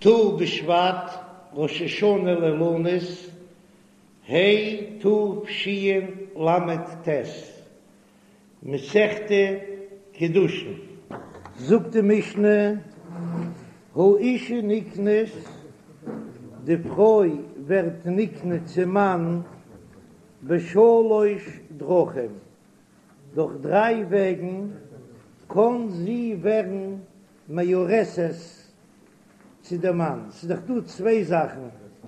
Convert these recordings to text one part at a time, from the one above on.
ט"ו בשבט, ראש השנה לאילנות, ה' תשל"ט, מסכת קידושין. זאגט די משנה, האשה נקנית, די פרוי ווערט נקנה צום מאן בשלש דרכים, דורך דריי וועגן קען זי ווערן מאורסת צו דעם מאן, ס'איז דאך דא צוויי זאכן,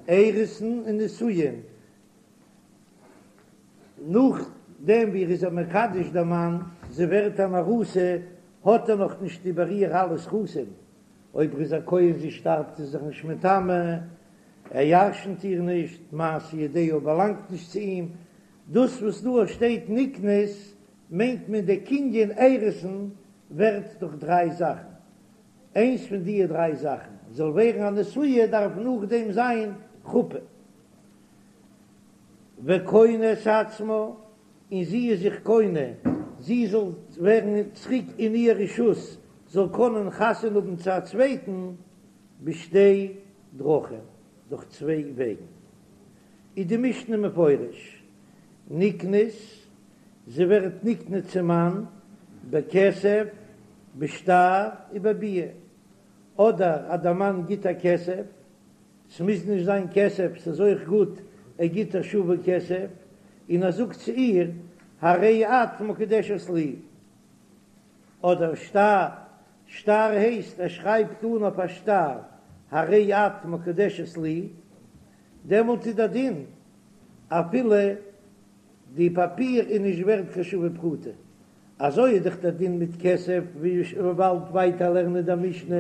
אירוסין און נישואין, נאכדעם ווי ער איז איר מקדש דער מאן, זי ווערט אן ארוסה, האט ער נאך נישט איבער איר אלע זכותים, אויב ער איז א כהן זי שטארבט איז זיך נישט מטמא, ער ירשנט איר נישט, מעשה ידיה באלאנגט נישט צו אים, דאס וואס דא שטייט נקנית מיינט מען דער קנין אירוסין ווערט דורך דריי זאכן, איינס פון דיע דריי זאכן זאל ווערן א נשואה דארף נאכדעם זיין חופה וקונה את עצמה, און זי איז זיך קונה זי זאל ווערן צוריק אין איר רשות זאל קענען חתונה האבן צו א צווייטן בשתי דרכים דורך צוויי וועגן איז די משנה מפורש נקנית זי ווערט נקנה צום מאן בכסף, בשטר ובביאה, אדער אז דער מאן גיט איר כסף, ס'מוז נישט זיין כסף, ס'איז אויך גוט ער גיט איר שווה כסף, און ער זאגט צו איר הרי את מקודשת לי, אדער שטר, שטר הייסט ער שרייבט אן אויף א שטר הרי את מקודשת לי, דעמאלט איז דער דין אפילו די פאפיר איז נישט ווערט קיין שווה פרוטה, אזוי איז דאך דער דין מיט כסף, ווי מ'וועט באלד ווייטער לערנען אין דער משנה,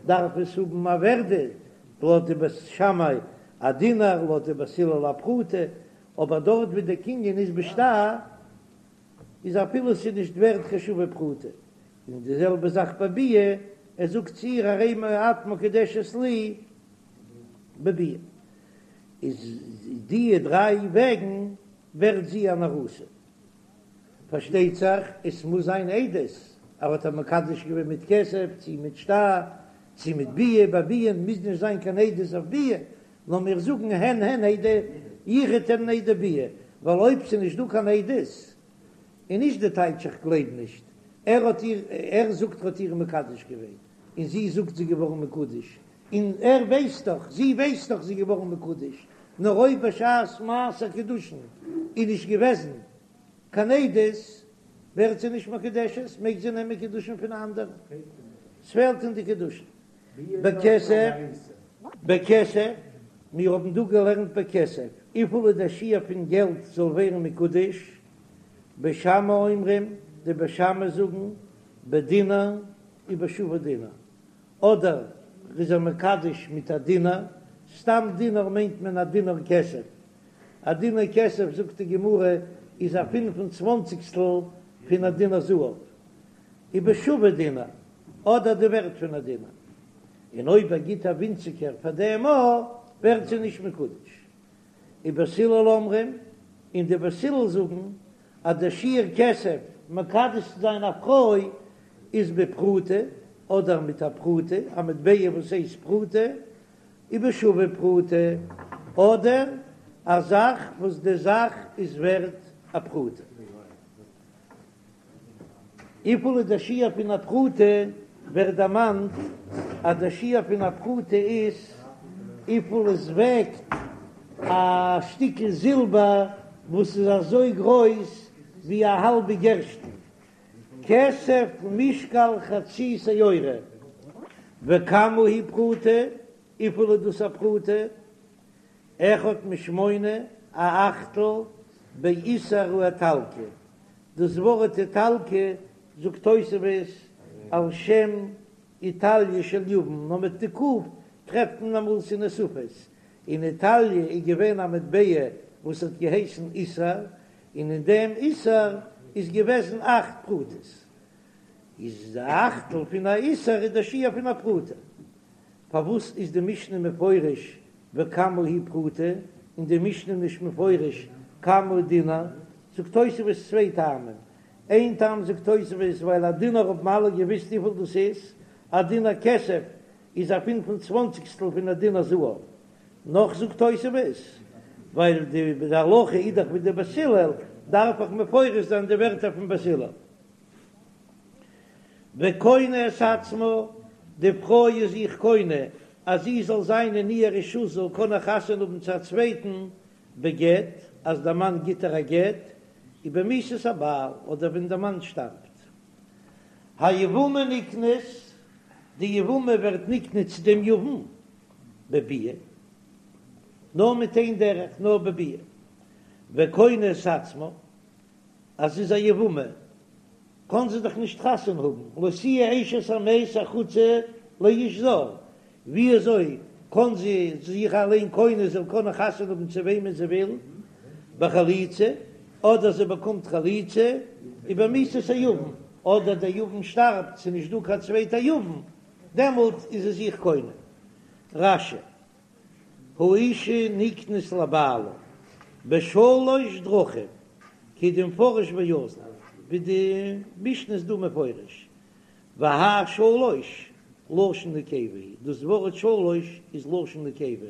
דארף עס האבן א ווערדע, לויט די בית שמאי א דינר, לויט די בית הלל א פרוטה, אבער דארט ווי דער קנין איז בשטר, איז אפילו ס'איז נישט ווערט קיין שווה פרוטה, און די זעלבע זאך ביי ביאה, ער זאגט צו איר הרי את מקודשת לי בביאה. איז די דריי וועגן ווערט זי אן ארוסה. פארשטייט זיך עס מוז זיין עדות, ער האט איר מקדש געווען מיט כסף צי מיט שטר צי מיט ביאה, ביי ביאה מוז נישט זיין קיין עדות אויף ביאה, נאר מיר זאגן הן הן עדי יחוד הן עדי ביאה, ווייל אויב ס'איז נישט דא קיין עדות איז נישט די טייטש איך גלייב נישט, ער האט איר ער זאגט ער האט איר מקדש געווען און זי זאגט זי געווארן מקודש, און ער ווייסט דאך, זי ווייסט דאך זי איז געווארן מקודש, נאר אויב בשעת מעשה קידושין איז נישט געוועזן קיין עדות, ווערט זי נישט מקודשת, מעג זי נעמען קידושין פון א אנדערן, ס'פעלט אין די קידושין. בכסף, בכסף, מיר האבן דא געלערנט בכסף, וויפיל איז דער שיעור פון געלט זאל ווערן מקודש, בית שמאי אומרים, די בית שמאי זאגן, בדינר ובשווה דינר, אדער ר'איז איר מקדש מיט א דינר, סתם דינר מיינט מען א דינר כסף, א דינר כסף זאגט די גמרא איז א פינף און צוואנציגסטל פון א דינר זהב, ובשווה דינר, אדער די ווערט פון א דינר, און אויב ער גיט א ווינציגער פאר דעם א ווערט זי נישט מקודש. ובית הלל אומרים, און די בית הלל זאגן אז דער שיעור כסף מקדש צו זיין א פרוי איז בפרוטה, אדער מיט א פרוטה, א מטבע וואס הייסט פרוטה, ובשווה פרוטה, אדער א זאך וואס די זאך איז ווערט א פרוטה. וויפיל איז דער שיעור פון א פרוטה? ווערט דערמאנט אז דער שיעור פון א פרוטה איז וויפיל עס וועגט א שטיקל זילבער וואס איז אזוי גרויס ווי א האלבע גערשטן, כסף משקל חצי שעורה, וכמה היא פרוטה? וויפיל איז דאס א פרוטה? אחד משמונה, א אכטל, באיסר האיטלקי, דאס ווארט איטלקי זאגט תוספות על שם איטליא של יוון, נאר מיט די ק' טרעפט מען אמאל ס'איז נוספות, אין איטאליע איז געווען א מטבע וואס האט געהייסן איסר, און אין דעם איסר איז געוועזן אכט פרוטות, איז די אכטל פון א איסר איז די שיעור פון א פרוטה. פארוואס איז די משנה מפורש וכמה היא פרוטה, און די משנה נישט מפורש כמה דינר? זאגט תוספות צוויי טעמים, איין טעם זאגט תוספות ווייל א דינר האבן אלע געוויסט וויפיל דאס איז, א דינר כסף. איז א פינף און צוואנציגסטל פון א דינר זהב. נאך זאגט תוספות, ווייל די הלכה איז דאך ווי די בית הלל, דארף איך מפרש זיין די ווערטער פון בית הלל. וקונה את עצמה, די פרוי איז זיך קונה אז זי זאל זיין אין איר רשות זאל קענען חתונה האבן צו א צווייטן בגט, אז דער מאן גיט איר א גט, ובמיתת הבעל, אדער ווען דער מאן שטארבט. היבמה נקנית, די יבמה ווערט נקנה צו דעם יבם בביאה, נאר מיט איין דרך, נאר בביאה. וקונה את עצמה, אז זי איז א יבמה, קאן זי דאך נישט חתונה האבן, לא תהיה אשת המת החוצה לאיש זר, ווי אזוי קאן זי זיך אליין קונה זאל קענען חתונה האבן צו וועמען זי וויל, בחליצה, אדער זי באקומט חליצה, ובמיתת היבם, אדער דער יבם שטארבט, ס'איז נישט דא קיין צווייטע יבם, דעמאלט איז זי זיך קונה. רש"י, האשה נקנית לבעלה בשלש דרכים, כדמפרש ואזיל, ווי די משנה איז דא מפרש, והאי שלש לשון נקבה היא, דאס ווארט שלש איז לשון נקבה,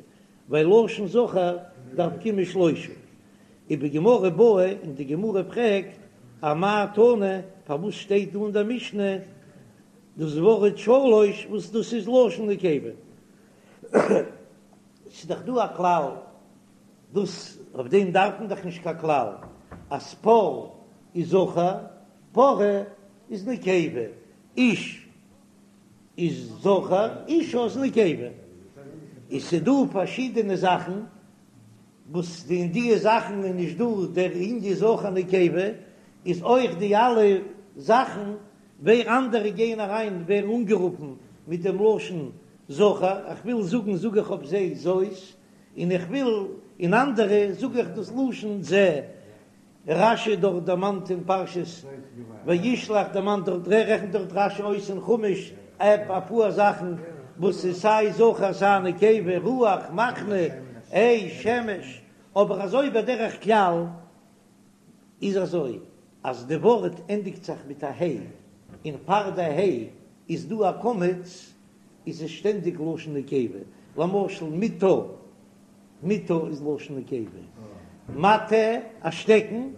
ווייל לשון זכר דארף קומען שלושה. ובגמרא בעי, און די גמרא פרעגט, אמאי תנא, פארוואס שטייט דא אין דער משנה דאס ווארט שלש וואס דאס איז לשון נקבה? ס'איז דאך דא א כלל, דאס אויף דעם דארף מען דאך נישט קיין כלל, אז פר איז זכר, פרה איז נקבה, איש איז זכר, אשה איז נקבה. איז ס'דא פארשידענע זאכן וואס אין די זאכן איז נישט דא דער ענין זכר נקבה, איז אויך די אלע זאכן ווער אנדערע גייען אריין ווערן אנגערופן מיט דעם לשון זכר, איך וויל זאגן זאג איך אויף זיי זאת, און איך וויל אין אנדערע זאג איך דאס לשון זה. רש"י דארט דערמאנט אין פרשת וישלח דערמאנט דארט רעכנט דארט רש"י אויס אין חומש ע אפאר זאכן וואס איז סיי זכר סיי נקבה רוח מחנה אש שמש אבער אזוי בדרך כלל איז אזוי אז די ווארט ענדיגט זיך מיט א ה' און פאר די ה' איז דא א קמץ איז עס שטענדיג לשון נקבה למשל מיטה מיטה איז לשון נקבה, מטה, א שטעקן,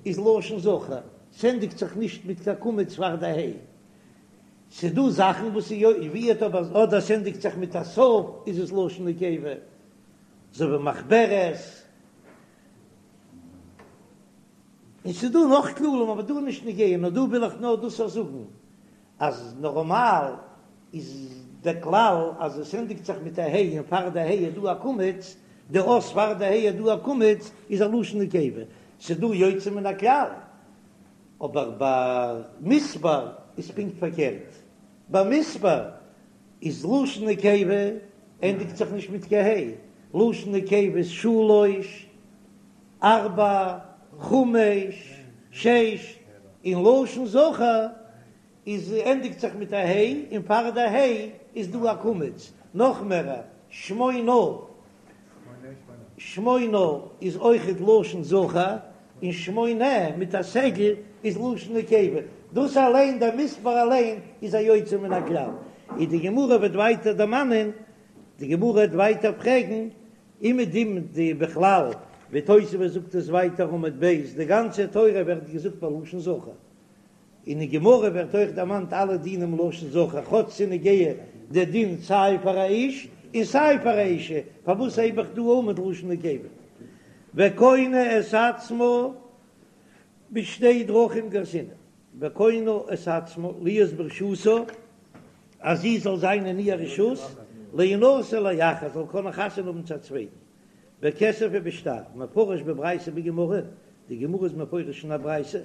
איז לשון זכר, ס'ענדיגט זיך נישט מיט קיין קמץ פאר די ה'. ס'דא זאכן וואס איז יא ווערט אבער אדער ס'ענדיגט זיך מיט א ת' איז עס לשון נקבה, אזוי ווי מחברת. און ס'דא נאך כללים אבער דא איז נישט נוגע, נאר דא וויל איך נאר דאס אויך זאגן אז נארמאל איז דער כלל אז עס ענדיגט זיך מיט א ה' און פאר די ה' איז דא א קמץ, די אות פאר די ה' איז דא א קמץ איז א לשון נקבה, ס'איז דא יוצא מן הכלל, אבער ביי מספר איז פונקט פארקערט, ביי מספר איז לשון נקבה ענדיגט זיך נישט מיט קיין ה', לשון נקבה איז שלוש, ארבע, חמש, שש, און לשון זכר איז ענדיגט זיך מיט א ה' און פאר די ה' איז דא א קמץ, נאך מער שמונה, שמונה איז אויכעט לשון זכר, און שמונה מיט א סגול איז לשון נקבה, דאס אליין דער מספר אליין איז א יוצא מן הכלל, און די גמרא וועט ווייטער דערמאנען, די גמרא וועט ווייטער פרעגן אומעדום די בכלל ווי תוספות זאגט עס ווייטער עמוד ב', די גאנצע תורה ווערט געזאגט בלשון זכר, אין די גמרא ווערט אויך דערמאנט אלע דינים לשון זכר, כאטש ס'איז נוגע די דין סיי פאר א איש און סיי פאר א אישה, פארוואס הייב איך דא אן מיט לשון נקבה? וקונה את עצמה בשתי דרכים גרסינן, וקונה את עצמה להיות ברשותה, אז זי זאל זיין אין איר רשות, להינשא לאחר, זאל קענען חתונה האבן צו א צווייטן, בכסף ובשטר, מפרש בברייתא בגמרא, די גמרא איז מפרש אין א ברייתא,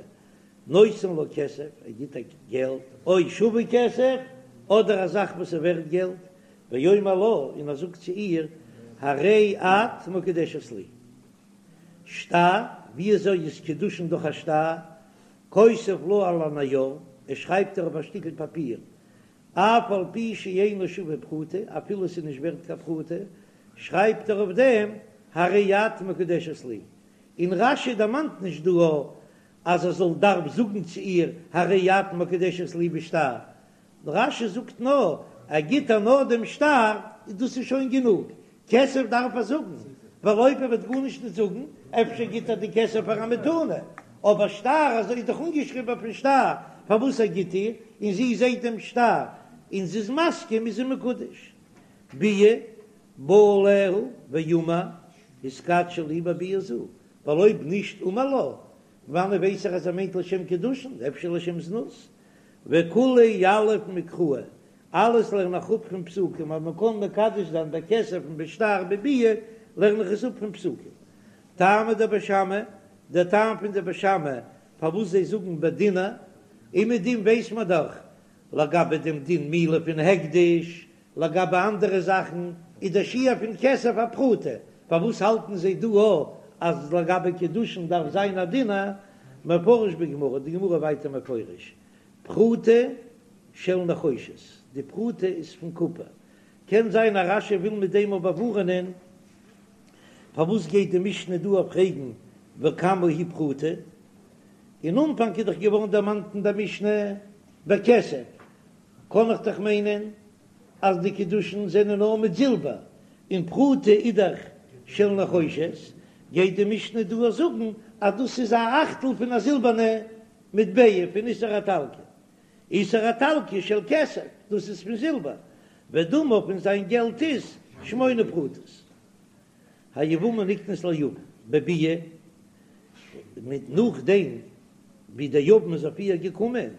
נותן לה כסף, ער גיט איר געלט, או שווה כסף, אדער א זאך וואס איז ווערט געלט, ואומר לה, און ער זאגט צו איר, הרי את מקודשת לי. שטר, ווי אזוי איז קידושין דורך א שטר? כותב לה על הנייר, ער שרייבט איר אויף א שטיקל פאפיר, אף על פי שאינו שווה פרוטה, אפילו עס איז נישט ווערט קיין פרוטה, שרייבט ער אויף דעם, הרי את מקודשת לי. און רש"י דערמאנט נישט דא אז ער זאל דארף זאגן צו איר הרי את מקודשת לי בשטר, רש"י זאגט נאר. ער גיט איר נאר דעם שטר, דאס איז שוין גענוג, כסף דארף ער זאגן, ווייל אויב ער וועט גארנישט נישט זאגן, אפשר גיט ער די כסף פאר א מתנה, אבער שטר, אזוי איז דאך אנגעשריבן אויפן שטר פארוואס ער גיט איר, און זי זעט דעם שטר און זי איז מסכים איז זי מקודש. ביאה בא עליה ואמר התקדשי לי בביאה זו, ווייל אויב נישט אמר לה, וואנען ווייס איך אז ער מיינט לשם קידושין, אפשר לשם זנות? וכולהו יליף מקראי, אלעס לערן איך אפ פון פסוקים, אז מען קען מקדש זיין בכסף און בשטר בביאה, לערן איך עס אפ פון פסוקים. טעמא דבית שמאי, דער טעם פון די בית שמאי פארוואס זיי זאגן בדינר, און מיט דעם ווייס מען דאך לגבי דעם דין מעילה פון הקדש, לגבי אנדערע זאכן איז דער שיעור פון כסף א פרוטה, פארוואס האלטן זיי דא א אז לגבי קידושין דארף זיין א דינר? מפרש בגמרא, די גמרא ווייטער מפרש, פרוטה של נחושת, די פרוטה איז פון קופער, קען זיין אז רש"י וויל מיט דעם באווארענען, פארוואס גייט די משנה דא פרעגן וכמה היא פרוטה? אין אנפאנג איז דאך געווארן דערמאנט אין דער משנה בכסף, קען איך דאך מיינען אז די קידושין זענען נאר מיט זילבער, און פרוטה איז דאך של נחושת, גייט די משנה דא זאגן אז דאס איז א אכטל פון א זילבערנע מטבע פון איסר האיטלקי, איסר האיטלקי של כסף, דאס איז פון זילבער, ודמיו און זיין געלט איז שמונה פרוטות. היבמה נקנית ליבם בביאה, מיט נאכדעם ווי דער יבם איז אויף איר געקומען,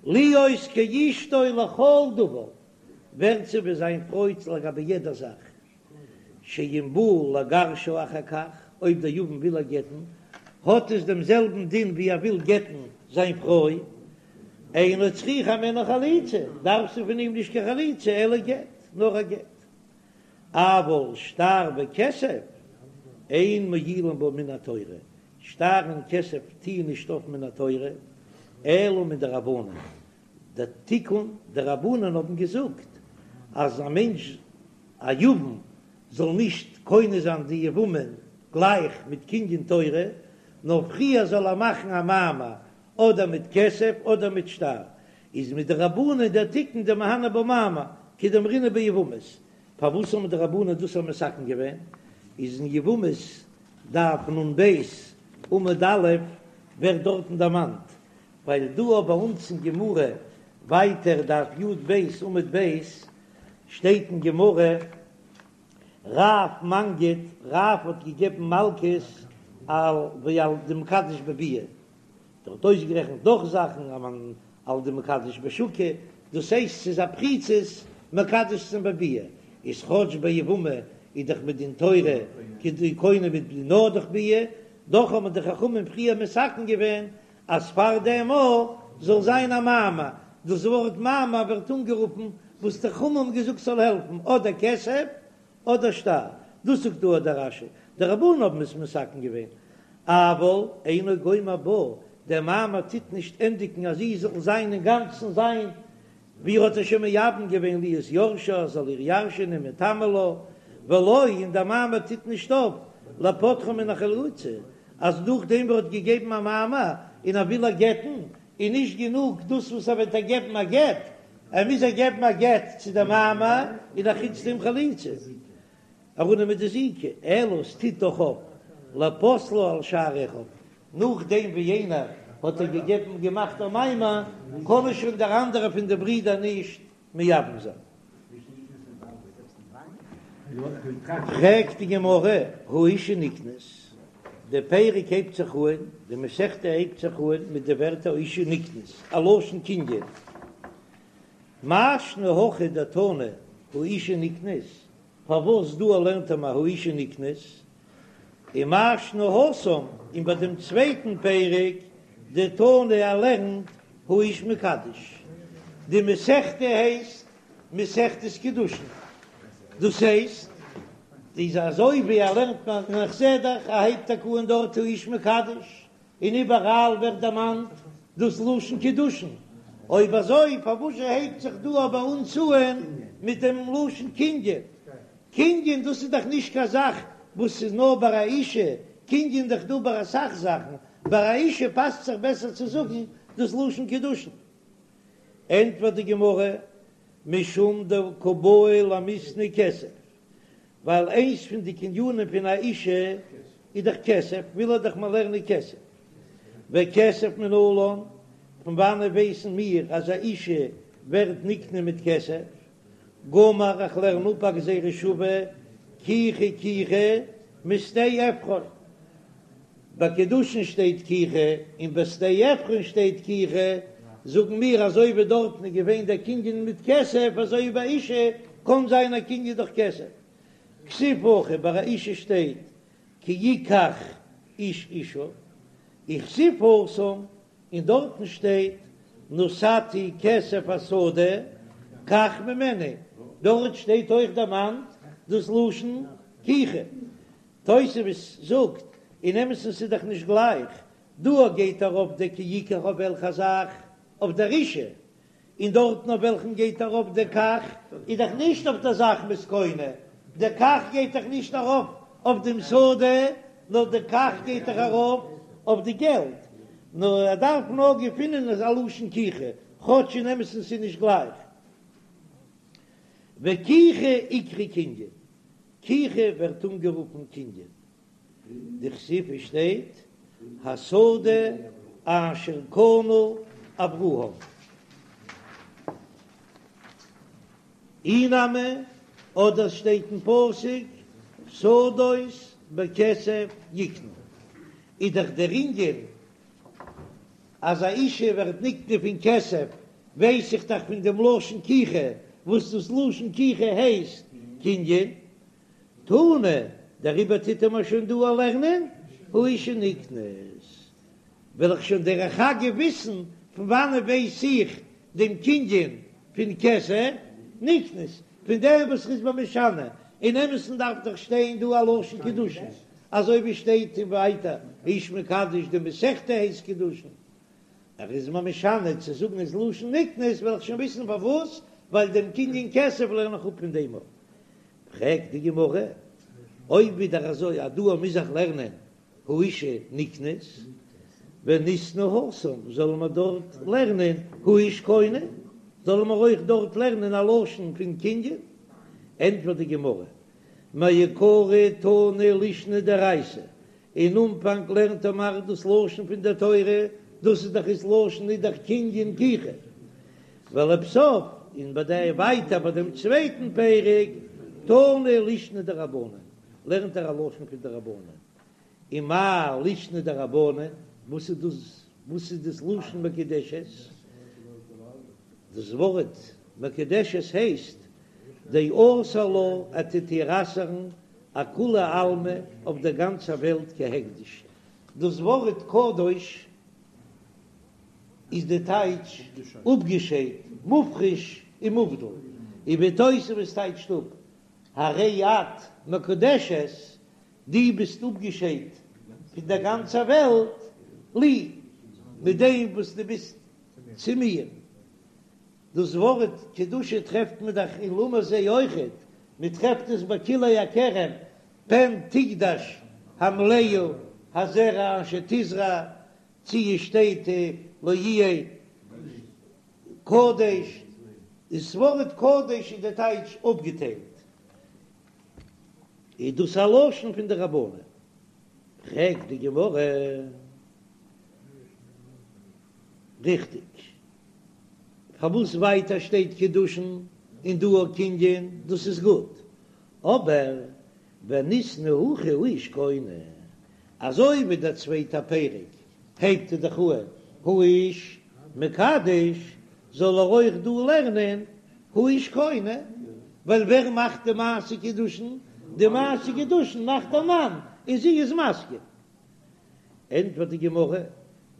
להיות כאשתו לכל דבר, ווערט זי ווי זיין פרוי לגבי יעדע זאך, שאם בא לגרשה אחר כך, אויב דער יבם וויל איר גט'ן, האט עס דעם זעלבן דין ווי ער וויל גט'ן זיין פרוי, אינה צריכה הימנו חליצה, דארף זי פון אים נישט קיין חליצה, אלא גט, נאר א גט. אבל שטר וכסף אין מועילין בה מן התורה, שטר און כסף טוען נישט אויף מן התורה, אלא מדרבנן, דער תיקון, די רבנן האבן געזאגט אז א מענטש א יבם זאל נישט קונה זיין די יבמה גלייך מיט קנין תורה, נאר פריער זאל ער מאכן א מאמר אדער מיט כסף אדער מיט שטר, איז מדרבנן דער תיקון דמהני בה מאמר כדאמרינן ביבמות, פארוואס האבן די רבנן דאס מתקן געווען? איז אין יבמות דף נ"ב עמוד א' ווערט דארטן דערמאנט, ווייל דא ביי אונז אין גמרא ווייטער דף י"ב עמוד ב' שטייט אין גמרא רב מנגיד רב האט געגעבן מלקות על ועל דמקדש בביאה ער האט אויסגערעכנט נאך זאכן על דמקדש בשוקא, דאס הייסט ס'איז א פריצות מקדש צו זיין בביאה, איז כאטש ביי יבמה איז דאך מדין תורה כדי קונה מיט נאר דורך ביאה, דאך האבן די חכמים פריער מתקן געווען אז פאר דעם אויך זאל זיין א מאמר, דאס ווארט מאמר ווערט אנגערופן וואס די חכמים האבן געזאגט ס'זאל העלפן אדער כסף אדער שטר, דאס זאגט דא דער רש"י, די רבנן האבן עס מתקן געווען, אבל אינו גומר בה, דער מאמר טוט נישט ענדיגן אז זי זאל זיין אינגאנצן זיין, ווי ער האט איר שוין מייבם געווען להיות יורשה, ער זאל איר ירש'ענען מטמא לה, ולא, און דער מאמר טוט נישט אויף לפוטרה מן החליצה, אז נאכדעם ווי ער האט געגעבן א מאמר און ער וויל איר גט'ן, איז נישט גענוג דאס וואס ער וועט איר געבן א גט, ער מוז איר געבן א גט צו די מאמר און אחוץ דעם חליצה אראפנעמען די זיקה, אלא עס טוט דאך אויף לפוסלה על שאר אחיו, נאכדעם ווי איינער האט איר געגעבן געמאכט א מאמר קען ער שוין דער אנדערער פון די ברידער נישט מייבם זיין. פרעגט די גמרא, האשה נקנית, די פרק הייבט זיך אהן, די מסכתא הייבט זיך אהן מיט די ווערטער האשה נקנית, א לשון קנין, מאי שנא הכא דתנא האשה נקנית, פארוואס דא לערנט ער מיר האשה נקנית, ומאי שנא התם, און ביי דעם צווייטן פרק דתנא ער לערנט האיש מקדש, די מסכתא הייסט מסכת קידושין, דאס הייסט איז אזוי ווי ער לערנט מיר און איך זע דאך ער הייבט טאקע אן דארט האיש מקדש, און איבעראל ווערט דערמאנט דאס לשון קידושין, אויב אזוי פארוואס הייבט זיך דא ביי אונז אן מיט דעם לשון קנין? קנין דאס איז דאך נישט קיין זאך וואס איז נאר ביי א אישה, קנין דאך דא ביי אסאך זאכן, ביי א אישה פאסט זיך בעסער צו זאגן דאס לשון קידושין. ענטפערט די גמרא. משום דקא בעי למיתני כסף, ווייל איינס פון די קנינים פון א אישה איז דאך כסף, וויל ער דאך מיר לערנען כסף. וכסף מנלן, פון וואנעט ווייסן מיר אז א אישה ווערט נקנה מיט כסף? גמר איך לערן אפ א גזירה שווה, קיחה קיחה משדה עפרון. ביי קידושין שטייט קיחה און ביי שדה עפרון שטייט קיחה, זאגן מיר אזוי ווי דארטן איז געווען דער קנין מיט כסף אזוי ווי ביי אישה קען זיין א קנין דורך כסף. כתיב הכא ביי א אישה שטייט כי יקח איש אישה, וכתיב התם און דארטן שטייט נתתי כסף השדה קח ממני, דארט שטייט אויך דערמאנט דאס לשון קיחה. תוספות זאגט, אין אמת'ן ס'איז דאך נישט גלייך, דא גייט ארויף דער כי יקח אויף וועלכע זאך? אויף דער אישה, און דארטן אויף וועלכן גייט ארויף דער קח איז דאך נישט אויף דער זאך מ'איז קונה, דער קח גייט דאך נישט ארויף אויף דעם שדה, נאר דער קח גייט דאך ארויף אויף די געלט, נאר ער דארף נאר געפינען א לשון קיחה, כאטש אין אמת'ן ס'איז נישט גלייך. וקיחה איקרי קנין, קיחה ווערט אנגערופן קנין, דכתיב עס שטייט השדה אשר קנה אברהם. אי נמי, אדער שטייט אין פסוק שדות בכסף יקנו, איז דאך דער ענין אז א אישה ווערט נקנה פון כסף, ווייס איך דאך פון דעם לשון קיחה, וואס דאס לשון קיחה הייסט קנין. תנא, דעריבער טוט ער מיר שוין דא א לערנען, האשה נקנית. וועל איך שוין דרך אגב וויסן פון וואנעט ווייס איך דעם קנין פון כסף נקנית, פון דעם וואס ר'איז מיר משנה, אין אמת'ן דארף דאך שטיין דא א לשון קידושין, אזוי ווי שטייט אין ווייטער האיש מקדש די מסכתא הייסט קידושין, ער איז מיר משנה צו זאגן איז לשון נקנית וועל איך שוין וויסן פארוואס, ווייל דעם קנין כסף לערן איך אפ פון דעם. פרעגט די גמרא, אויב ווידער אזוי אז דא מוז איך לערנען האשה נקנית, וניתני התם, זאלן מיר דארט לערנען האיש קונה, זאלן מיר אויך דארט לערנען א לשון פון קנין? ענטפערט די גמרא, מעיקרא תנא לישנא דאורייתא, אין אנפאנג לערנט ער מיר דאס לשון פון דער תורה, דאס איז דאך איז לשון איז דאך קנין קיחה, ולבסוף, און ביי די ווייטער ביי דעם צווייטן פרק, תנא לישנא דרבנן, לערנט ער א לשון פון די רבנן, ומאי לישנא דרבנן, וואס איז דאס, וואס איז דאס לשון מקודשת? דאס ווארט מקודשת הייסט דאסר לה, ער טוט איר אסר'ן אכולי עלמא אויף דער גאנצער וועלט כהקדש. דאס ווארט קדוש איז די טייטש אפגעשיידט, מופרש און מובדל, און ווי תוספות טייטשט אפ הרי את מקודשת, דו ביסט אפגעשיידט פון דער גאנצער וועלט, לי, מיט דעם וואס דו ביסט צו מיר. דאס ווארט קדושה טרעפט מען דאך אין למה זה אויכעט, מען טרעפט עס ביי כלאי הכרם, פן תקדש המלאה הזרע אשר תזרע, צו עס שטייט לא יהיה קדש, דאס ווארט קדש איז די טייטש אפגעטיילט, איז דאס א לשון פון די רבנן? פרעגט די גמרא, ריכטיג, פארוואס ווייטער שטייט קידושין און דא א קנין, דאס איז גוט, אבער וניתני הכא האיש קונה, אזוי ווי דער צווייטער פרק הייבט ער דאך אן האיש מקדש, זאל ער אויך דא לערנען האיש קונה, ווייל ווער מאכט די מעשה קידושין? די מעשה קידושין מאכט דער מאן און זי איז מסכים. ענטפערט די גמרא,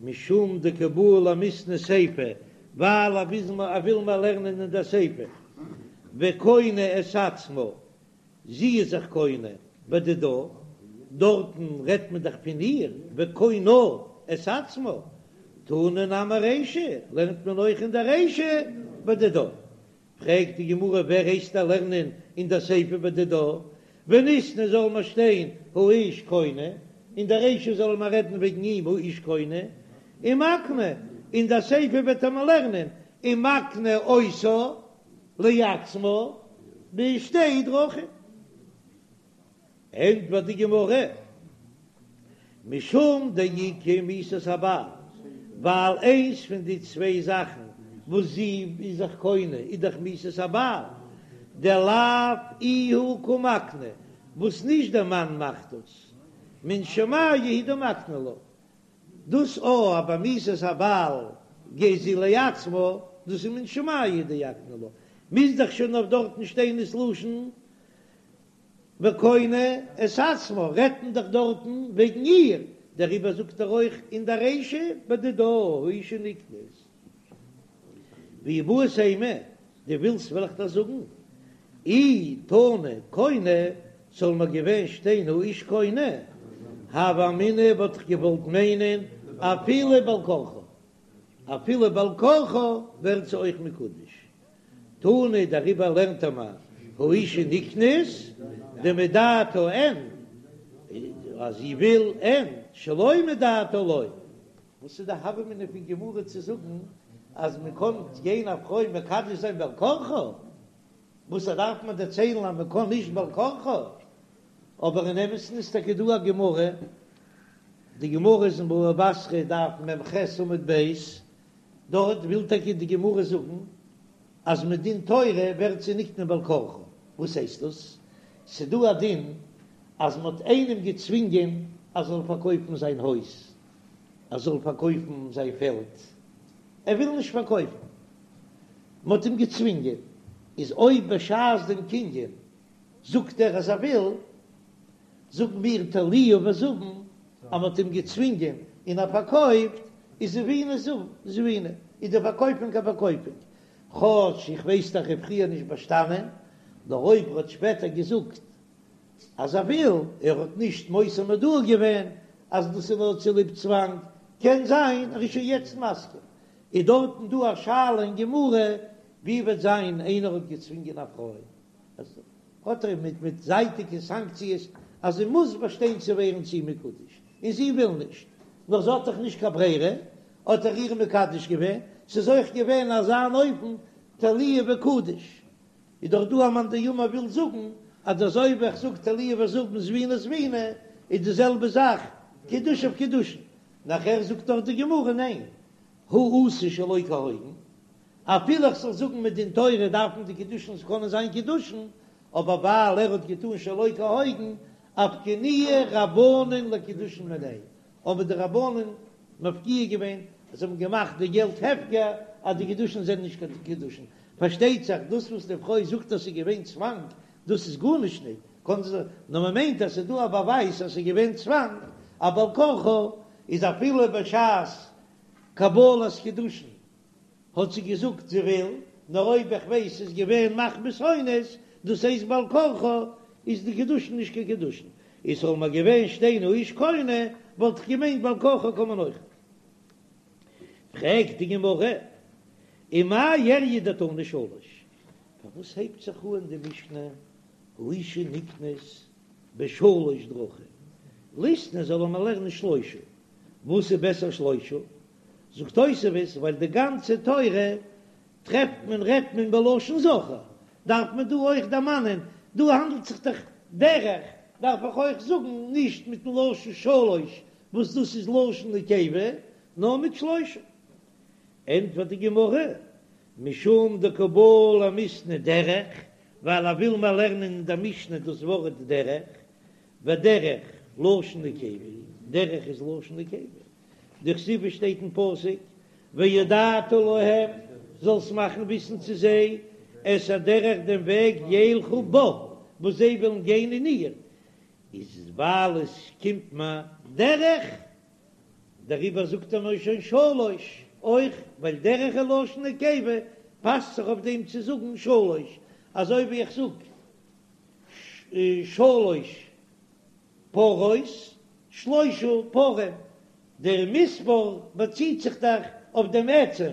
משום דקא בעי למיתני סיפא, ווייל ער וויל מיר לערנען אין דער סיפא, וקונה את עצמה, זי איז זיך קונה בדידה, דארטן רעדט מען דאך פון איר, וקונה את עצמה, תנא נמי רישא, לערנט מען אויך אין דער רישא בדידה. פרעגט די גמרא ווער הייסט דיר לערנען אין דער סיפא בדידה, וניתני זאל מען שטיין האיש קונה, אין דער רישא זאל מען רעדן וועגן אים האיש קונה, ומקנה, אין דער סיפא וועט ער מיר לערנען ומקנה אותה. לעצמה בשתי דרכים. ענטפערט די גמרא, משום דאיכא מיתת הבעל, ווייל איינס פון די צוויי זאכן וואס זי איז זיך קונה איז דאך מיתת הבעל, דלאו איהו קא מקני, וואס נישט דער מאן מאכט דאס, מן שמיא הוא דמקני לה, דאס או אז ביי מיתת הבעל גייט זי לעצמה, דאס איז מן שמיא הוא דאקני לה, מוז דאך שוין אויף דארטן שטיין דאס לשון וקונה את עצמה, רעדט מען דאך דארטן וועגן איר, דעריבער זאגט ער אויך אין די רישא בדידה האשה נקנית. ואי בעית אימא, דו ווילסט וועל איך דיר זאגן, אי תנא קונה, זאל מיר געווען שטיין האיש קונה, הוה אמינא וואלט איך געוואלט מיינען אפילו בעל כרחה, אפילו בעל כרחה ווערט זי אויך מקודש. תנא דעריבער לערנט ער מיר האשה נקנית דמדעתה אין, אז זי וויל אין, שלא מדעתה לא. וואס איז די הוה אמינא פון גמרא צו זאגן אז מען קען גיין א פרוי מקדש זיין בעל כרחה? וואס דארף מען דערציילן אז מען קען נישט בעל כרחה? אבער אין אמת'ן איז טאקע דא א גמרא, די גמרא איז אין בבא בתרא דף מ"ח עמוד ב', דארט וויל טאקע די גמרא זאגן אז מדין תורה ווערט זי נקנה בעל כרחה, וואס הייסט דאס? ס'דא א דין אז מ'האט איינעם געצווינגען אז זאל פארקויפן זיין הויז, ער זאל פארקויפן זיין פעלד, ער וויל נישט פארקויפן, מ'האט אים געצווינגען, איז אויב בשעת דעם קנין זאגט ער אז ער וויל, זאגן מיר תלוהו וזבין, אז מ'האט אים געצווינגען און ער פארקויפט, איז זביניה זביני, איז די פארקויפונג א פארקויפונג, כאטש איך ווייס דאך ער פריער נישט באשטאנען, נאר אויב ער האט שפעטער געזאגט אז ער וויל, ער האט נישט מוסר מודעה געווען אז דאס איז נאר צוליב צוואנג, קען זיין ער איז שוין יעצט מסכים. איז דארטן דא א שאלה אין גמרא, ווי וועט זיין איינער האט געצווינגען א פרוי, אז האט ער מיט מיט זייטיגע סאנקציעס אז זי מוז באשטיין צו ווערן צו אים מקודש, און זי וויל נישט, נאר זי האט דאך נישט קיין ברירה, האט ער איר מקדש געווען, ס'איז אויך געווען אזא אן אופן תלוהו וקדיש, איז דאך דא א מאן דאמר וויל זאגן אז אזוי ווי איך זאג תלוהו וזבין זביני זביני איז די זעלבע זאך קידושיו קידושין, נאכער זאגט דאך די גמרא ניין, הא אתא שלא כהוגן, אפילו איך זאל זאגן מדין תורה דארפן די קידושין קענען זיין קידושין, אבער ווייל ער האט געטאן שלא כהוגן, אפקעינהו רבנן לקידושין מיניה, האבן די רבנן מפקיע געווען, זיי האבן געמאכט די געלט הפקר אז די קידושין זענען נישט קיין קידושין, פארשטייט זיך דאס וואס די פרוי זאגט אז ס'איז געווען צוואנג, דאס איז גארנישט נישט, קען זי, נאר מען מיינט אז ס'איז דא א באווייז אז ס'איז געווען צוואנג, א בעל כרחה איז אפילו בשעת קבלת קידושין האט זי געזאגט זי וויל, נאר אויב איך ווייס ס'איז געווען מחמת אונס, דאס הייסט בעל כרחה, איז די קידושין נישט קיין קידושין. איז זאל מיר געווען שטיין האיש קונה, וואלט איך געמיינט בעל כרחה קען מען אויך. פרעגט די גמרא, ומאי איריא דתנא שלש, פארוואס הייבט זיך אן די משנה האשה נקנית בשלש דרכים, ליתני זאל מען לערנען שלושה, וואס איז בעסער שלושה? זאגט תוספות, ווייל די גאנצע תורה טרעפט מען רעדט מען בלשון זכר, דארף מען דא אויך דערמאנען, דא האנדלט זיך דאך דרך, דארף איך אויך זאגן נישט מיטן לשון שלש וואס דאס איז לשון נקבה, נאר מיט שלושה. ענטפערט די גמרא, משום דקא בעי למיתני דרך, ווייל ער וויל מיר לערנען אין דער משנה דאס ווארט דרך, ודרך לשון נקבה, דרך איז לשון נקבה, דכתיב שטייט אין פסוק והודעת להם, זאלסט מאכן וויסן צו זיי, את הדרך דעם וועג ילכו בה, וואס זיי וועלן גיין אין איר, איז ווייל עס קומט מיר דרך, דעריבער זאגט ער נאר שוין שלש, אויך ווייל דרך איז לשון נקבה, פאסט זיך אויף דעם צו זאגן שלש, אזוי ווי איך זאג שלש פרות, שלושה פרים, דער מספר באציט זיך דאך אויף דעם עצם,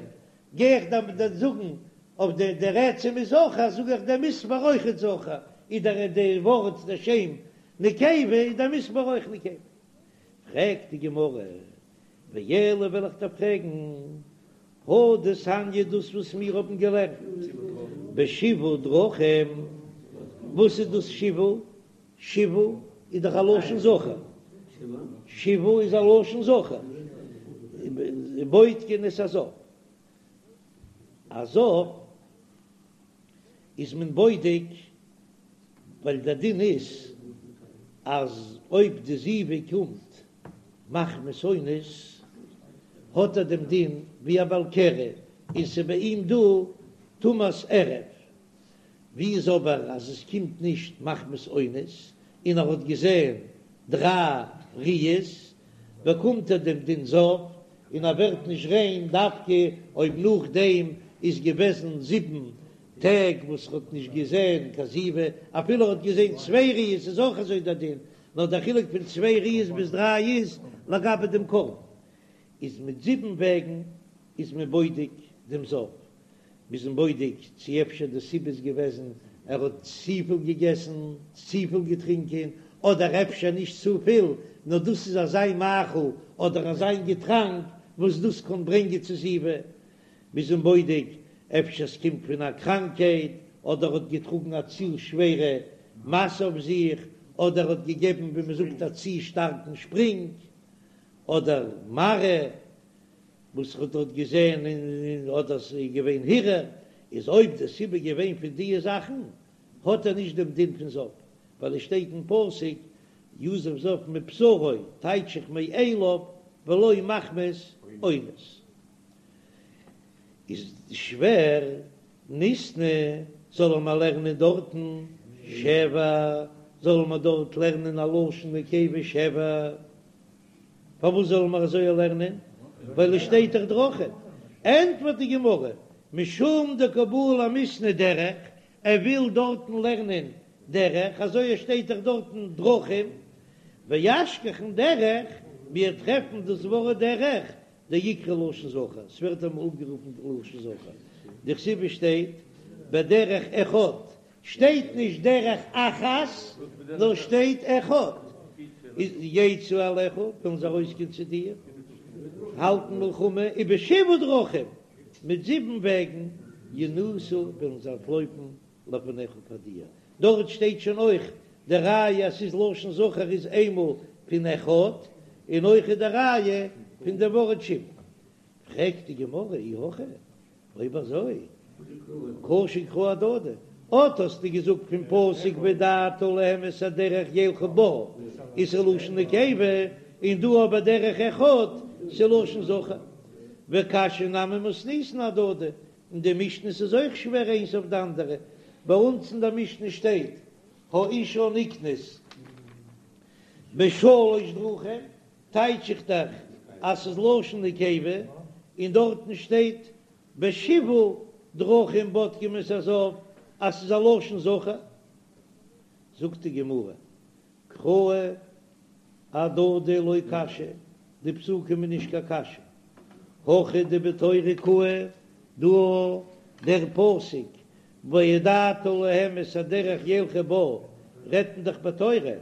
גיי איך דאן זאגן אויף דער דער עצם איז זכר, זאג איך דער מספר אויך איז זכר, איז דער דער ווארט דער שם נקבה איז דער מספר אויך נקבה. פרעגט די גמרא, ואלא וועל איך דיר פרעגן. הא דתניא דאס וואס מיר האבן געלערנט בשבעה דרכים, וואס איז דאס שבעה? שבעה איז דאך א לשון זכר, שבעה איז א לשון זכר, בודקין את הזב, א זב איז מען בודק ווייל דער דין איז אז אויב די זיבה קומט מחמת אונס האט ער דעם דין ווי א בעל קרי און ס'איז ביי אים דא טומאת ערב, ווי איז אבער אז עס קומט נישט מחמת אונס און ער האט געזען דריי ראיות באקומט ער דעם דין זב און ער ווערט נישט ריין דווקא אויב נאכדעם איז געוועזן זיבן טעג וואס ער האט נישט געזען קיין זיבה, אפילו ער האט געזען צוויי ראיות איז אויך אזוי דער דין, נאר דער חילוק פון צוויי ראיות ביז דריי איז לגבי דעם קרבן, איז מיט זיבן וועגן איז מען בודק דעם זב, מ'איז אים בודק צו אפשר די סיבה איז געוועזן ער האט צופיל געגעסן, צופיל געטרינקען, אדער אפשר נישט צופיל, נאר דאס איז אזא מאכל אדער אזא געטראנק וואס דאס קען ברענגען צו זיבה, מ'איז אים בודק אפשר ס'קומט פון א קראנקייט, אדער האט געטראגן א צו שווערע משא אויף זיך, אדער האט געגעבן ווי מ'זאגט א צו שטארקן שפרינג, אדער מראה וואס ער האט דארט געזען און אדער ס'איז געווען הרהור, איז אויב די סיבה געווען פון דיע זאכן האט ער נישט דעם דין פון זב, ווייל עס שטייט אין פסוק יזוב זב מבשרו טייטש איך מאליו ולא מחמת אונס. איז שווער ניתני זאל מען לערנען דארטן שבע, זאל מען דארט לערנען א לשון נקבה שבע, פארוואס זאל מען אזוי לערנען? ווייל עס שטייט דאך דרכים. ענטפערט די גמרא, משום דקא בעי למיתני דרך, ער וויל דארטן לערנען דרך, אזוי עס שטייט דאך דארטן דרכים, ואשכחן דרך, מיר טרעפן דאס ווארט דרך, דאיקרי לשון זכר, ס'ווערט אמאל אנגערופן לשון זכר, דכתיב שטייט בדרך אחד, שטייט נישט דרך אחת, נאר שטייט אחד, איז יצאו אליך, וועלן זיי ארויסגיין צו דיר, האלטן מלחמה, ובשבעה דרכים, מיט זיבן וועגן, ינוסו, וועלן זיי אנטלויפן לפניך פאר דיר, דארט שטייט שוין אויך די ראיה אז ס'איז לשון זכר איז איינמאל פון אחד, און אויך איז די ראיה פון די ווארט שבעה. פרעגט די גמרא אי הכי, אויב אזוי קשו קראי אהדדי, אט האסטו געזאגט פון פסוק והודעת להם את הדרך ילכו בה איז ס'לשון נקבה, און דא אבער דרך אחד ס'לשון זכר, וקשיא נמי מתניתין אהדדי, אין די משניות איז אויך שווער איינס אויף די אנדערע, ביי אונז אין די משנה שטייט האשה נקנית בשלש דרכים, טייטש איך דאך אז ס'איז לשון נקבה, און דארטן שטייט בשבעה דרכים בודקים את הזב אז ס'איז א לשון זכר, זאגט די גמרא קראי אהדדי לא קשיא, די פסוקים איז נישט קיין קשיא, הכא דבתורה קאי, דא דער פסוק והודעת להם את הדרך ילכו בה רעדט מען דאך בתורה,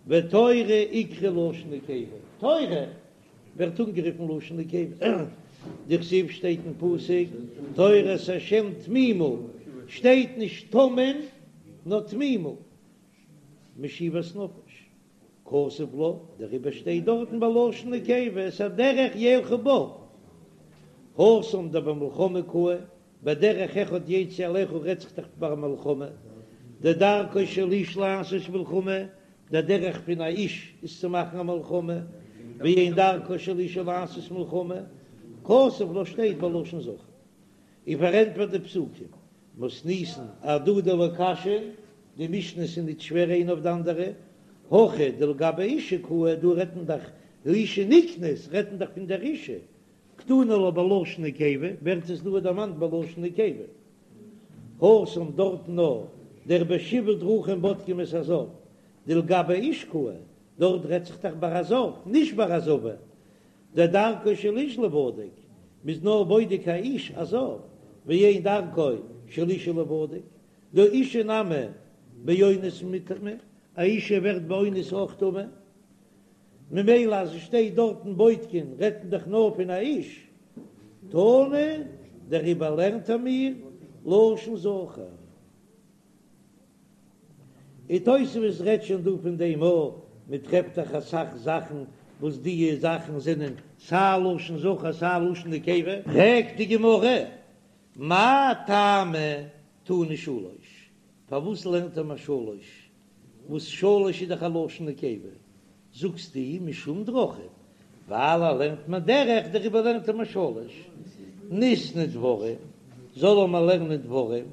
ותורה איקרי לשון נקבה, תורה ווערט אנגערופן לשון נקבה, דכתיב שטייט אין פסוק תורת השם תמימה, שטייט נישט תמים נאר תמימה. משיבת נפש, כתב לה, דעריבער שטייט דארטן בלשון נקבה את הדרך ילכו בה, התם דבמלחמה קאי, בדרך אחד יצאו אליך רעדט זיך דאך ביי מלחמה, דדרכו של איש לעשות מלחמה, דער דרך פון א איש איז צו מאכן א מלחמה, ואין דרכה של אשה לעשות מלחמה, כתב לה שטייט בלשון זכר, און פארענטפערט די פסוקים, מתניתין אהדדי לא קשיא, די משניות איז ניט שווער איינע אויף די אנדערע, הכא דלגבי אשה קאי, דא רעדט מען דאך האשה נקנית, רעדט מען דאך פון דער אשה, קתני לה בלשון נקבה, ווערט עס דא דערמאנט בלשון נקבה. התם דארטן נאר דער בשבעה דרכים בודקים את הזב, דלגבי איש קאי, דארט רעדט זיך דאך ביי א זב, נישט ביי א זבה, דדרכו של איש ליבדק, מ'איז נאר בודק א איש א זב, ואין דרכה של אשה ליבדק, דהא אשה נמי באונס מיטמאה, א אשה ווערט באונס אויך טמא, ממילא אז עס שטייט דארטן בודקין רעדט מען דאך נאר פון א איש. תנא, דעריבער לערנט ער מיר לשון זכר. און תוספות רעדט שוין דא פון דעם אויך, מען טרעפט דאך אסאך זאכן וואס די זאכן זענען סיי לשון זכר סיי לשון נקבה. פרעגט די גמרא, מאי טעמא תנא שלש, פארוואס לערנט ער מיר שלש, וואס שלש איז דאך א לשון נקבה, זאגסטו משום דרכים, ווייל ער לערנט מיר דרך, דעריבער לערנט ער מיר שלש, ניתני דברים, זאל ער מיר לערנען דברים,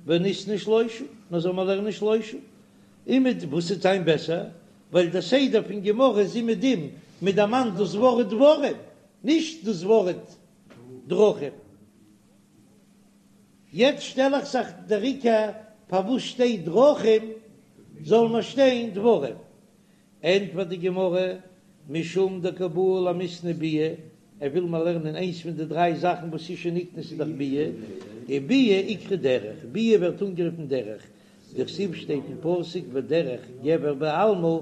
וניתני שלושה, נאר זאל מיר לערנען שלושה, און מיט וואס וועט זיין בעסער, ווייל דער סדר פון גמרא איז אומעדום, מען דערמאנט דאס ווארט דברים, נישט דאס ווארט דרכים. יעצט שטעל איך זיך דער עיקר פארוואס שטייט דרכים זאל מען שטיין דברים, ענטפערט די גמרא, משום דקא בעי למיתני ביאה, ער וויל מיר לערנען איינס פון די דריי זאכן וואס אשה נקנית איז דאך ביאה, וביאה איקרי דרך, ביאה ווערט אנגערופן דרך, דכתיב שטייט אין פסוק ודרך גבר בעלמה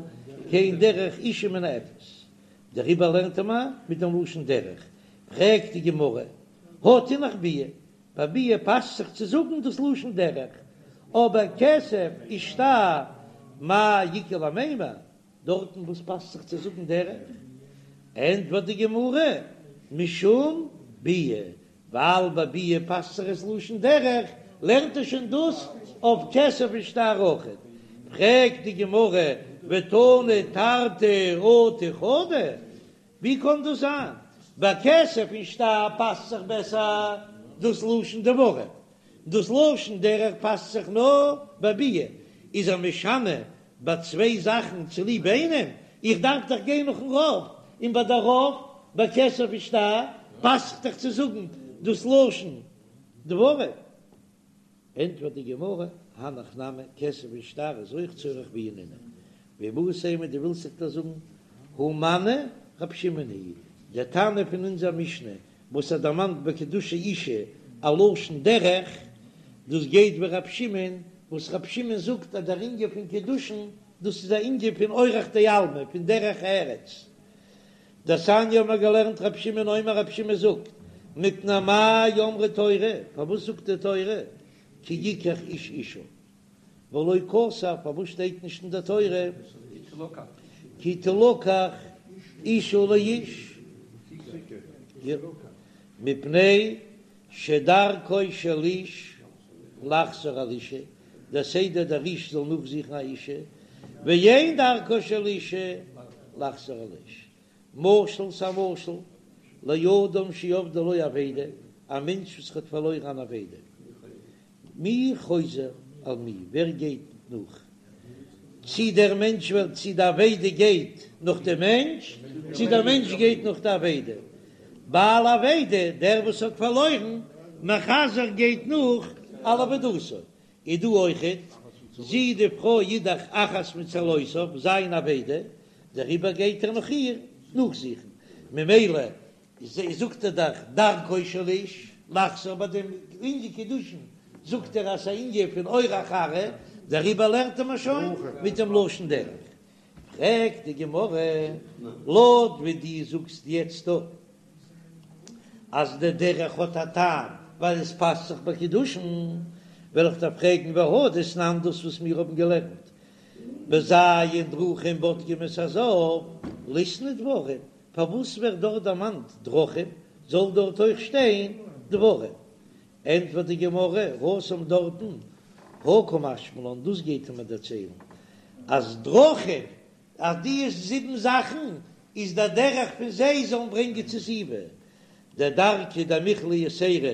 כן דרך אשה מנאפת, דעריבער לערנט ער מיר מיט דעם לשון דרך, פרעגט די גמרא, הא תינח ביאה, ביי ביאה פאסט זיך צו זאגן דאס לשון דרך, אבער כסף ושטר מאי איכא למימר, דארטן וואס פאסט זיך צו זאגן דרך? ענטפערט די גמרא, משום ביאה, ווייל ביי ביאה פאסט זיך עס לשון דרך, לערנט ער שוין דאס אויף כסף ושטר אויכעט. פרעגט די גמרא, ותנא תרתי אטו חדא, ווי קען דאס זיין? ביי כסף און שטר פאסט זיך בעסער דאס לשון דברים, דאס לשון דרך פאסט זיך נאר ביי ביאה, איז ער משנה ביי צוויי זאכן צוליב איינעם? איך דארף דאך גיין נאכן רוב, און ביי די רוב ביי כסף און שטר פאסט זיך דאך צו זאגן דאס לשון דברים. ענטפערט די גמרא, הנך נמי, כסף און שטר איז אויך צורך ביאה נינהו, ואיבעית אימא דו ווילסט זיך דאס זאגן, הא מני רב שמעון היא, דער תנא פון אונזער משנה וואס ער דערמאנט ביי קידושי אישה א לשון דרך, דאס גייט ווי רב שמעון, וואס רב שמעון זאגט אז דער ענין פון קידושין דאס איז א ענין פון אורח דעלמא, פון דרך ארץ. דתניא האבן מיר געלערנט רב שמעון אומר רב שמעון זאגט, מפני מה אמרה תורה, פארוואס זאגט די תורה כי יקח איש אישה, ולא כתב, פארוואס שטייט נישט אין די תורה כי תלקח אישה לאיש, מפני שדרכו של איש לחזור על אישה, דער סדר דער איש זאל נאכזוכן א אישה, ואין דרכה של אישה לחזור על איש. משל ס'א משל, לאדם שאבדה לו אבידה, א מענטש וואס האט פארלוירן אן אבידה. מי חוזר על מי, ווער גייט נאך? צי דער מענטש וועלט צי די אבידה גייט נאך דעם מענטש, צי דער מענטש גייט נאך די אבידה. בעל אבידה, דער וואס האט פארלוירן, מחזר גייט נאך על אבידתו. איז דא אויכעט, זי די פרוי איז דאך אחת מצלותיו, זיין אבידה, דעריבער גייט ער נאך איר נאכזוכן, ממילא זאגט ער דאך דרכו של איש לחזור ביי דעם ענין קידושין זאגט ער אז ס'איז א ענין פון אורח ארעא, דעריבער לערנט ער מיר שוין מיט דעם לשון דרך. פרעגט די גמרא, לויט ווי דו זאגסט יעצט דא אז די דרך האט א טעם ווייל עס פאסט זיך ביי קידושין, וועל איך דיר פרעגן והא דתנן דאס וואס מיר האבן געלערנט בז' דרכים בודקים את הזב, ליתני דברים, פארוואס ווערט דארט דערמאנט דרכים, זאל דארט אויך שטיין דברים? ענטפערט די גמרא, התם דארטן, הא קא משמע לן, דאס גייט ער מיר דערציילן, אז דרכים, אז די זיבן זאכן איז דער דרך פון זיי זאלן ברענגען צו זיבה, דדרכא דמיכלא יתירא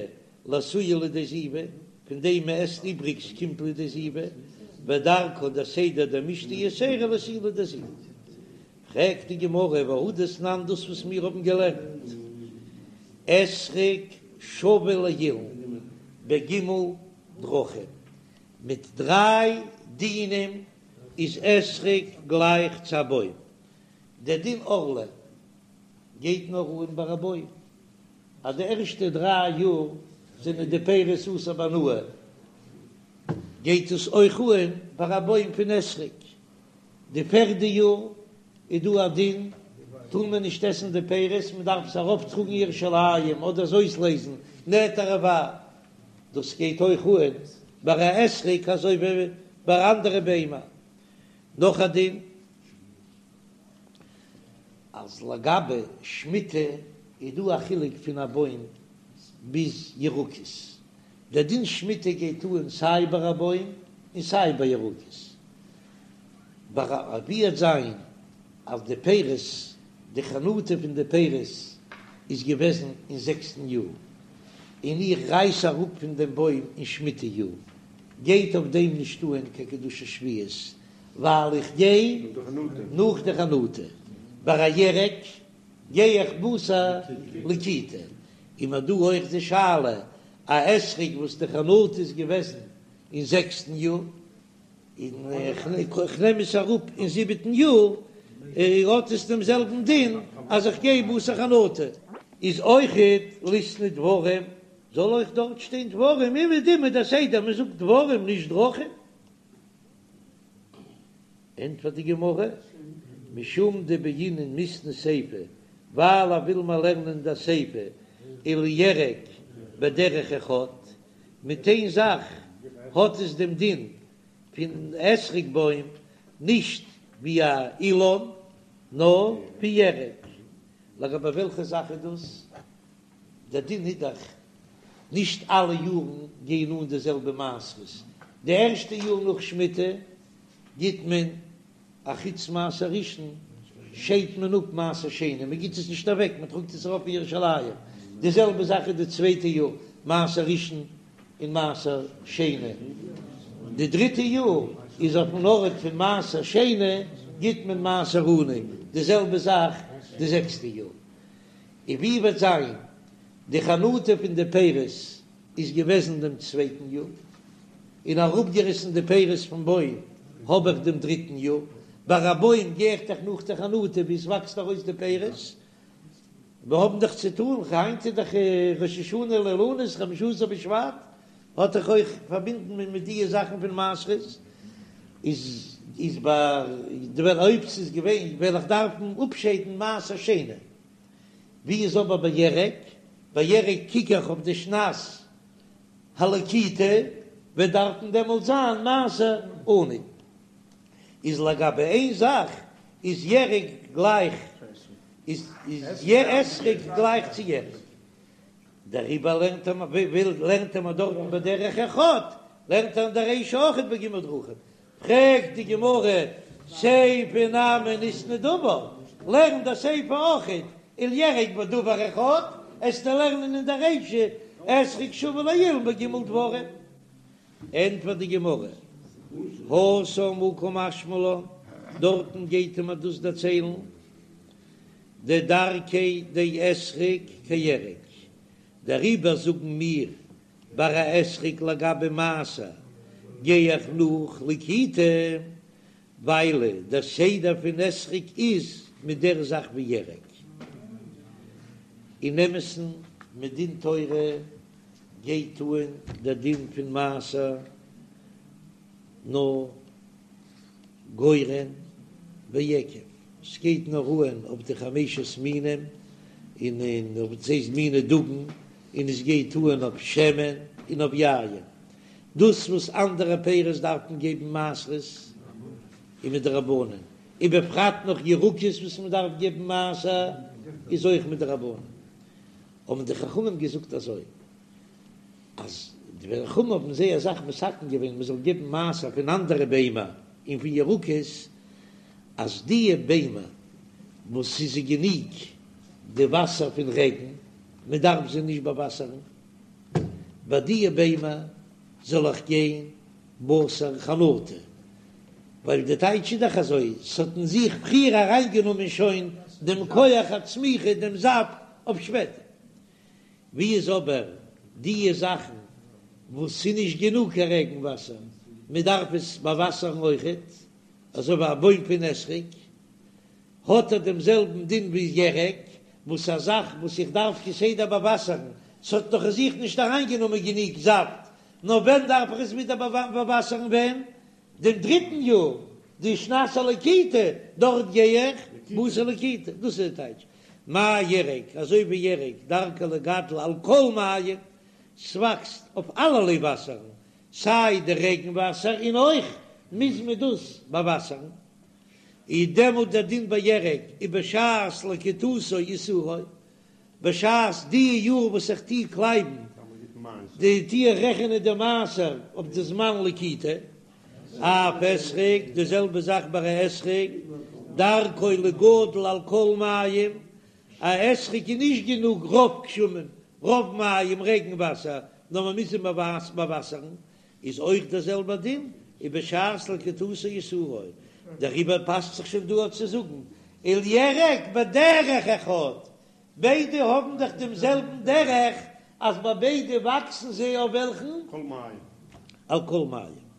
לאתויי לידי זיבה, פון דעם מען עסט איבריגס קומט לידי זיבה, ודרכא דער סדר דמישתי יתירא לאתויי לידי זיבה. פרעגט די גמרא והא דתנן דאס וואס מיר האבן געלערנט אתרוג שווה לאילן בג' דרכים, מיט דריי דינים איז אתרוג גלייך צו א בוים, דער דין ערלה גייט נאר אן ביי א בוים, אז די ערשטע דריי יאר זענען די פירות אסור בהנאה, גייט עס אויך אן ביי א בוים פון אתרוג. די פערדע יאר איז דא א דין. טאר מען נישט עסן די פירות, מען דארף עס ארויפטראגן ירושלים אדער עס אויסלעזן נטע רבעי, דאס גייט אויך אן ביי א אתרוג אזוי ווי ביי אנדערע ביימער. נאך א דין אז לגבי שמיטה איז דא א חילוק פון א בוים ביז ירקות, דער דין שמיטה גייט אן סיי ביי א בוים און סיי ביי ירקות, ביי א ווי וועט זיין אז די פירות, די חנטה פון די פירות איז געוועזן אין זעקסטן יאר, און איך רייס אראפ פון דעם בוים אין שמיטה יאר, גייט אויף דעם נישט אן קיין קדושת שביעית, ווייל איך גיי נאך די חנטה, ביי א ירק גיי איך בתר לקיטה, און מ'האט דא אויך די שאלה, א אתרוג וואס די חנטה איז געוועזן אין זעקסטן יאר, און איך נעם עס אראפ אין זיבעטן יאר, האט עס דעם זעלבן דין אז איך גיי בתר חנטה. איז אויכעט ליתני דברים, זאל אויך דארט שטיין דברים, אומעדום איז דער סדר מען זאגט דברים נישט דרכים. ענטפערט די גמרא, משום דבעינן מיתני סיפא, ווייל ער וויל מיר לערנען די סיפא ולירק בדרך אחד, מיט איין זאך האט עס דעם דין פון אתרוג בוים, נישט ווי א אילן, נאר ווי ירק. לגבי וועלכע זאך איז דאס? דער דין איז דאך נישט אלע יארן גייען אן די זעלבע מעשרות, די ערשטע יאר נאך שמיטה גיט מען א חוץ מעשר ראשון שיידט מען אפ מעשר שני, מען גיט עס נישט אוועק, מען טראגט עס ארויף אין ירושלים, די זעלבע זאך איז די צווייטע יאר, מעשר ראשון און מעשר שני, די דריטע יאר איז אויפן ארט פון מעשר שני גיט מען מעשר עני, די זעלבע זאך די זעקסטע יאר, און ווי וועט זיין די חנטה פון די פירות איז געוועזן דעם צווייטן יאר, און אראפגעריסן די פירות פון בוים האב איך דעם דריטן יאר, ביי א בוים גיי איך דאך נאך די חנטה ווי עס וואקסט ארויס די פירות, מיר האבן דאך צו טאן, היינט איז דאך ראש השנה לאילנות חמשה עשר בשבט, האט דאך אויך פארבינדן מיט די זאכן פון מעשרות, איז איז ביי די ווען אויב ס'איז געווען וועל איך דארפן אפשיידן מעשר שני. ווי איז אבער ביי ירק? ביי ירק קוק איך אויף די שנת הלקיטה, וועט דארפן דעמאלט זיין מעשר עני. איז לגבי איין זאך איז ירק גלייך איז אתרוג גלייך צו ירק, דעריבער לערנט ער וויל לערנט ער מיר דארטן בדרך אחד, לערנט ער אין דער רישא אויכעט בג' דרכים, פרעגט די גמרא, סיפא נמי ניתני דבר, לערן די סיפא אויכעט, ולירק בדבר אחד, עסטו לערנען אין דער רישא אתרוג שוה לאילן בג' דברים. ענטפערט די גמרא, התם הא קא משמע לן, דארטן גייט ער מיר דאס דערציילן, דדרכיה דאתרוג כירק, דעריבער זאגן מיר ביי א אתרוג לגבי מעשר גיי איך נאך לקיטה, ווייל דער סדר פון אתרוג איז מיט דער זאך ווי ירק. אין אמת'ן מדין תורה גייט אן דער דין פון מעשר נאר גורן ויקב, ס'גייט נאר אן אויף די חמשת מינים און אויף דאס הייסט מיני דגן, און עס גייט אן אויף שמן און אויף יין. דאס וואס אנדערע פירות דארף מען געבן מעשרות איז מדרבנן, ובפרט נאך ירקות וואס מען דארף געבן מעשר איז אויך מדרבנן. האבן די חכמים געזאגט אזוי, אז די חכמים האבן זייער אסאך מתקן געווען מען זאל געבן מעשר פון אנדערע ביימער און פון ירקות, אז די ביימער וואס ס'איז זיי גענוג די וואסער פון רעגן, מען דארף זיי נישט באוואסערן, ביי די ביימער זאל איך גיין בתר חנטה, ווייל די טייטש איז דאך אזוי, ס'האט אין זיך פריער אריינגענומען שוין דעם כח הצמיחה, דעם זאפט אויף שפעטער. ווי איז אבער די זאכן וואס ס'איז נישט גענוג קיין רעגן וואסער, מען דארף עס באוואסערן אויכעט, אזוי ווי א בוים פון אתרוג, האט ער דעם זעלבן דין ווי ירק, וואס א זאך וואס איך דארף כסדר באוואסערן, ס'האט נאך אין זיך נישט אריינגענומען גענוג זאפט, נאר ווען דארף איך עס ווידער באוואסערן ווען? דעם דריטן יאר, די שנת הלקיטה, דארט גיי איך. בתר לקיטה, דאס איז די טייטש. מה ירק, אזוי ווי ירק, דרכו לגדל על כל מים, ס'וואקסט אויף אלערליי וואסערן, סיי די רעגן וואסער און אויך מוז מען דאס באוואסערן, איז דעמאלט דער דין ביי ירק ובשעת לקיטתו עישורו, בשעת די יאר וואס איך טוה קלייבן די טוה איך רעכענען די מעשר אויף די זמן לקיטה, אף אתרוג, די זעלבע זאך ביי א אתרוג, דרכו לגדל על כל מים, א אתרוג איז נישט גענוג רוב גשמים, רוב מים רעגן וואסער, נאר מען מוז אים באוואסערן, איז אויך דער זעלבער דין, ובשעת לקיטתו עישורו, דעריבער פאסט זיך שוין דא אויך צו זאגן ולירק בדרך אחד, ביידע האבן דאך דעם זעלבן דרך, אז ביי ביידע וואקסן זיי אויף וועלכן? כל מים. על כל מים.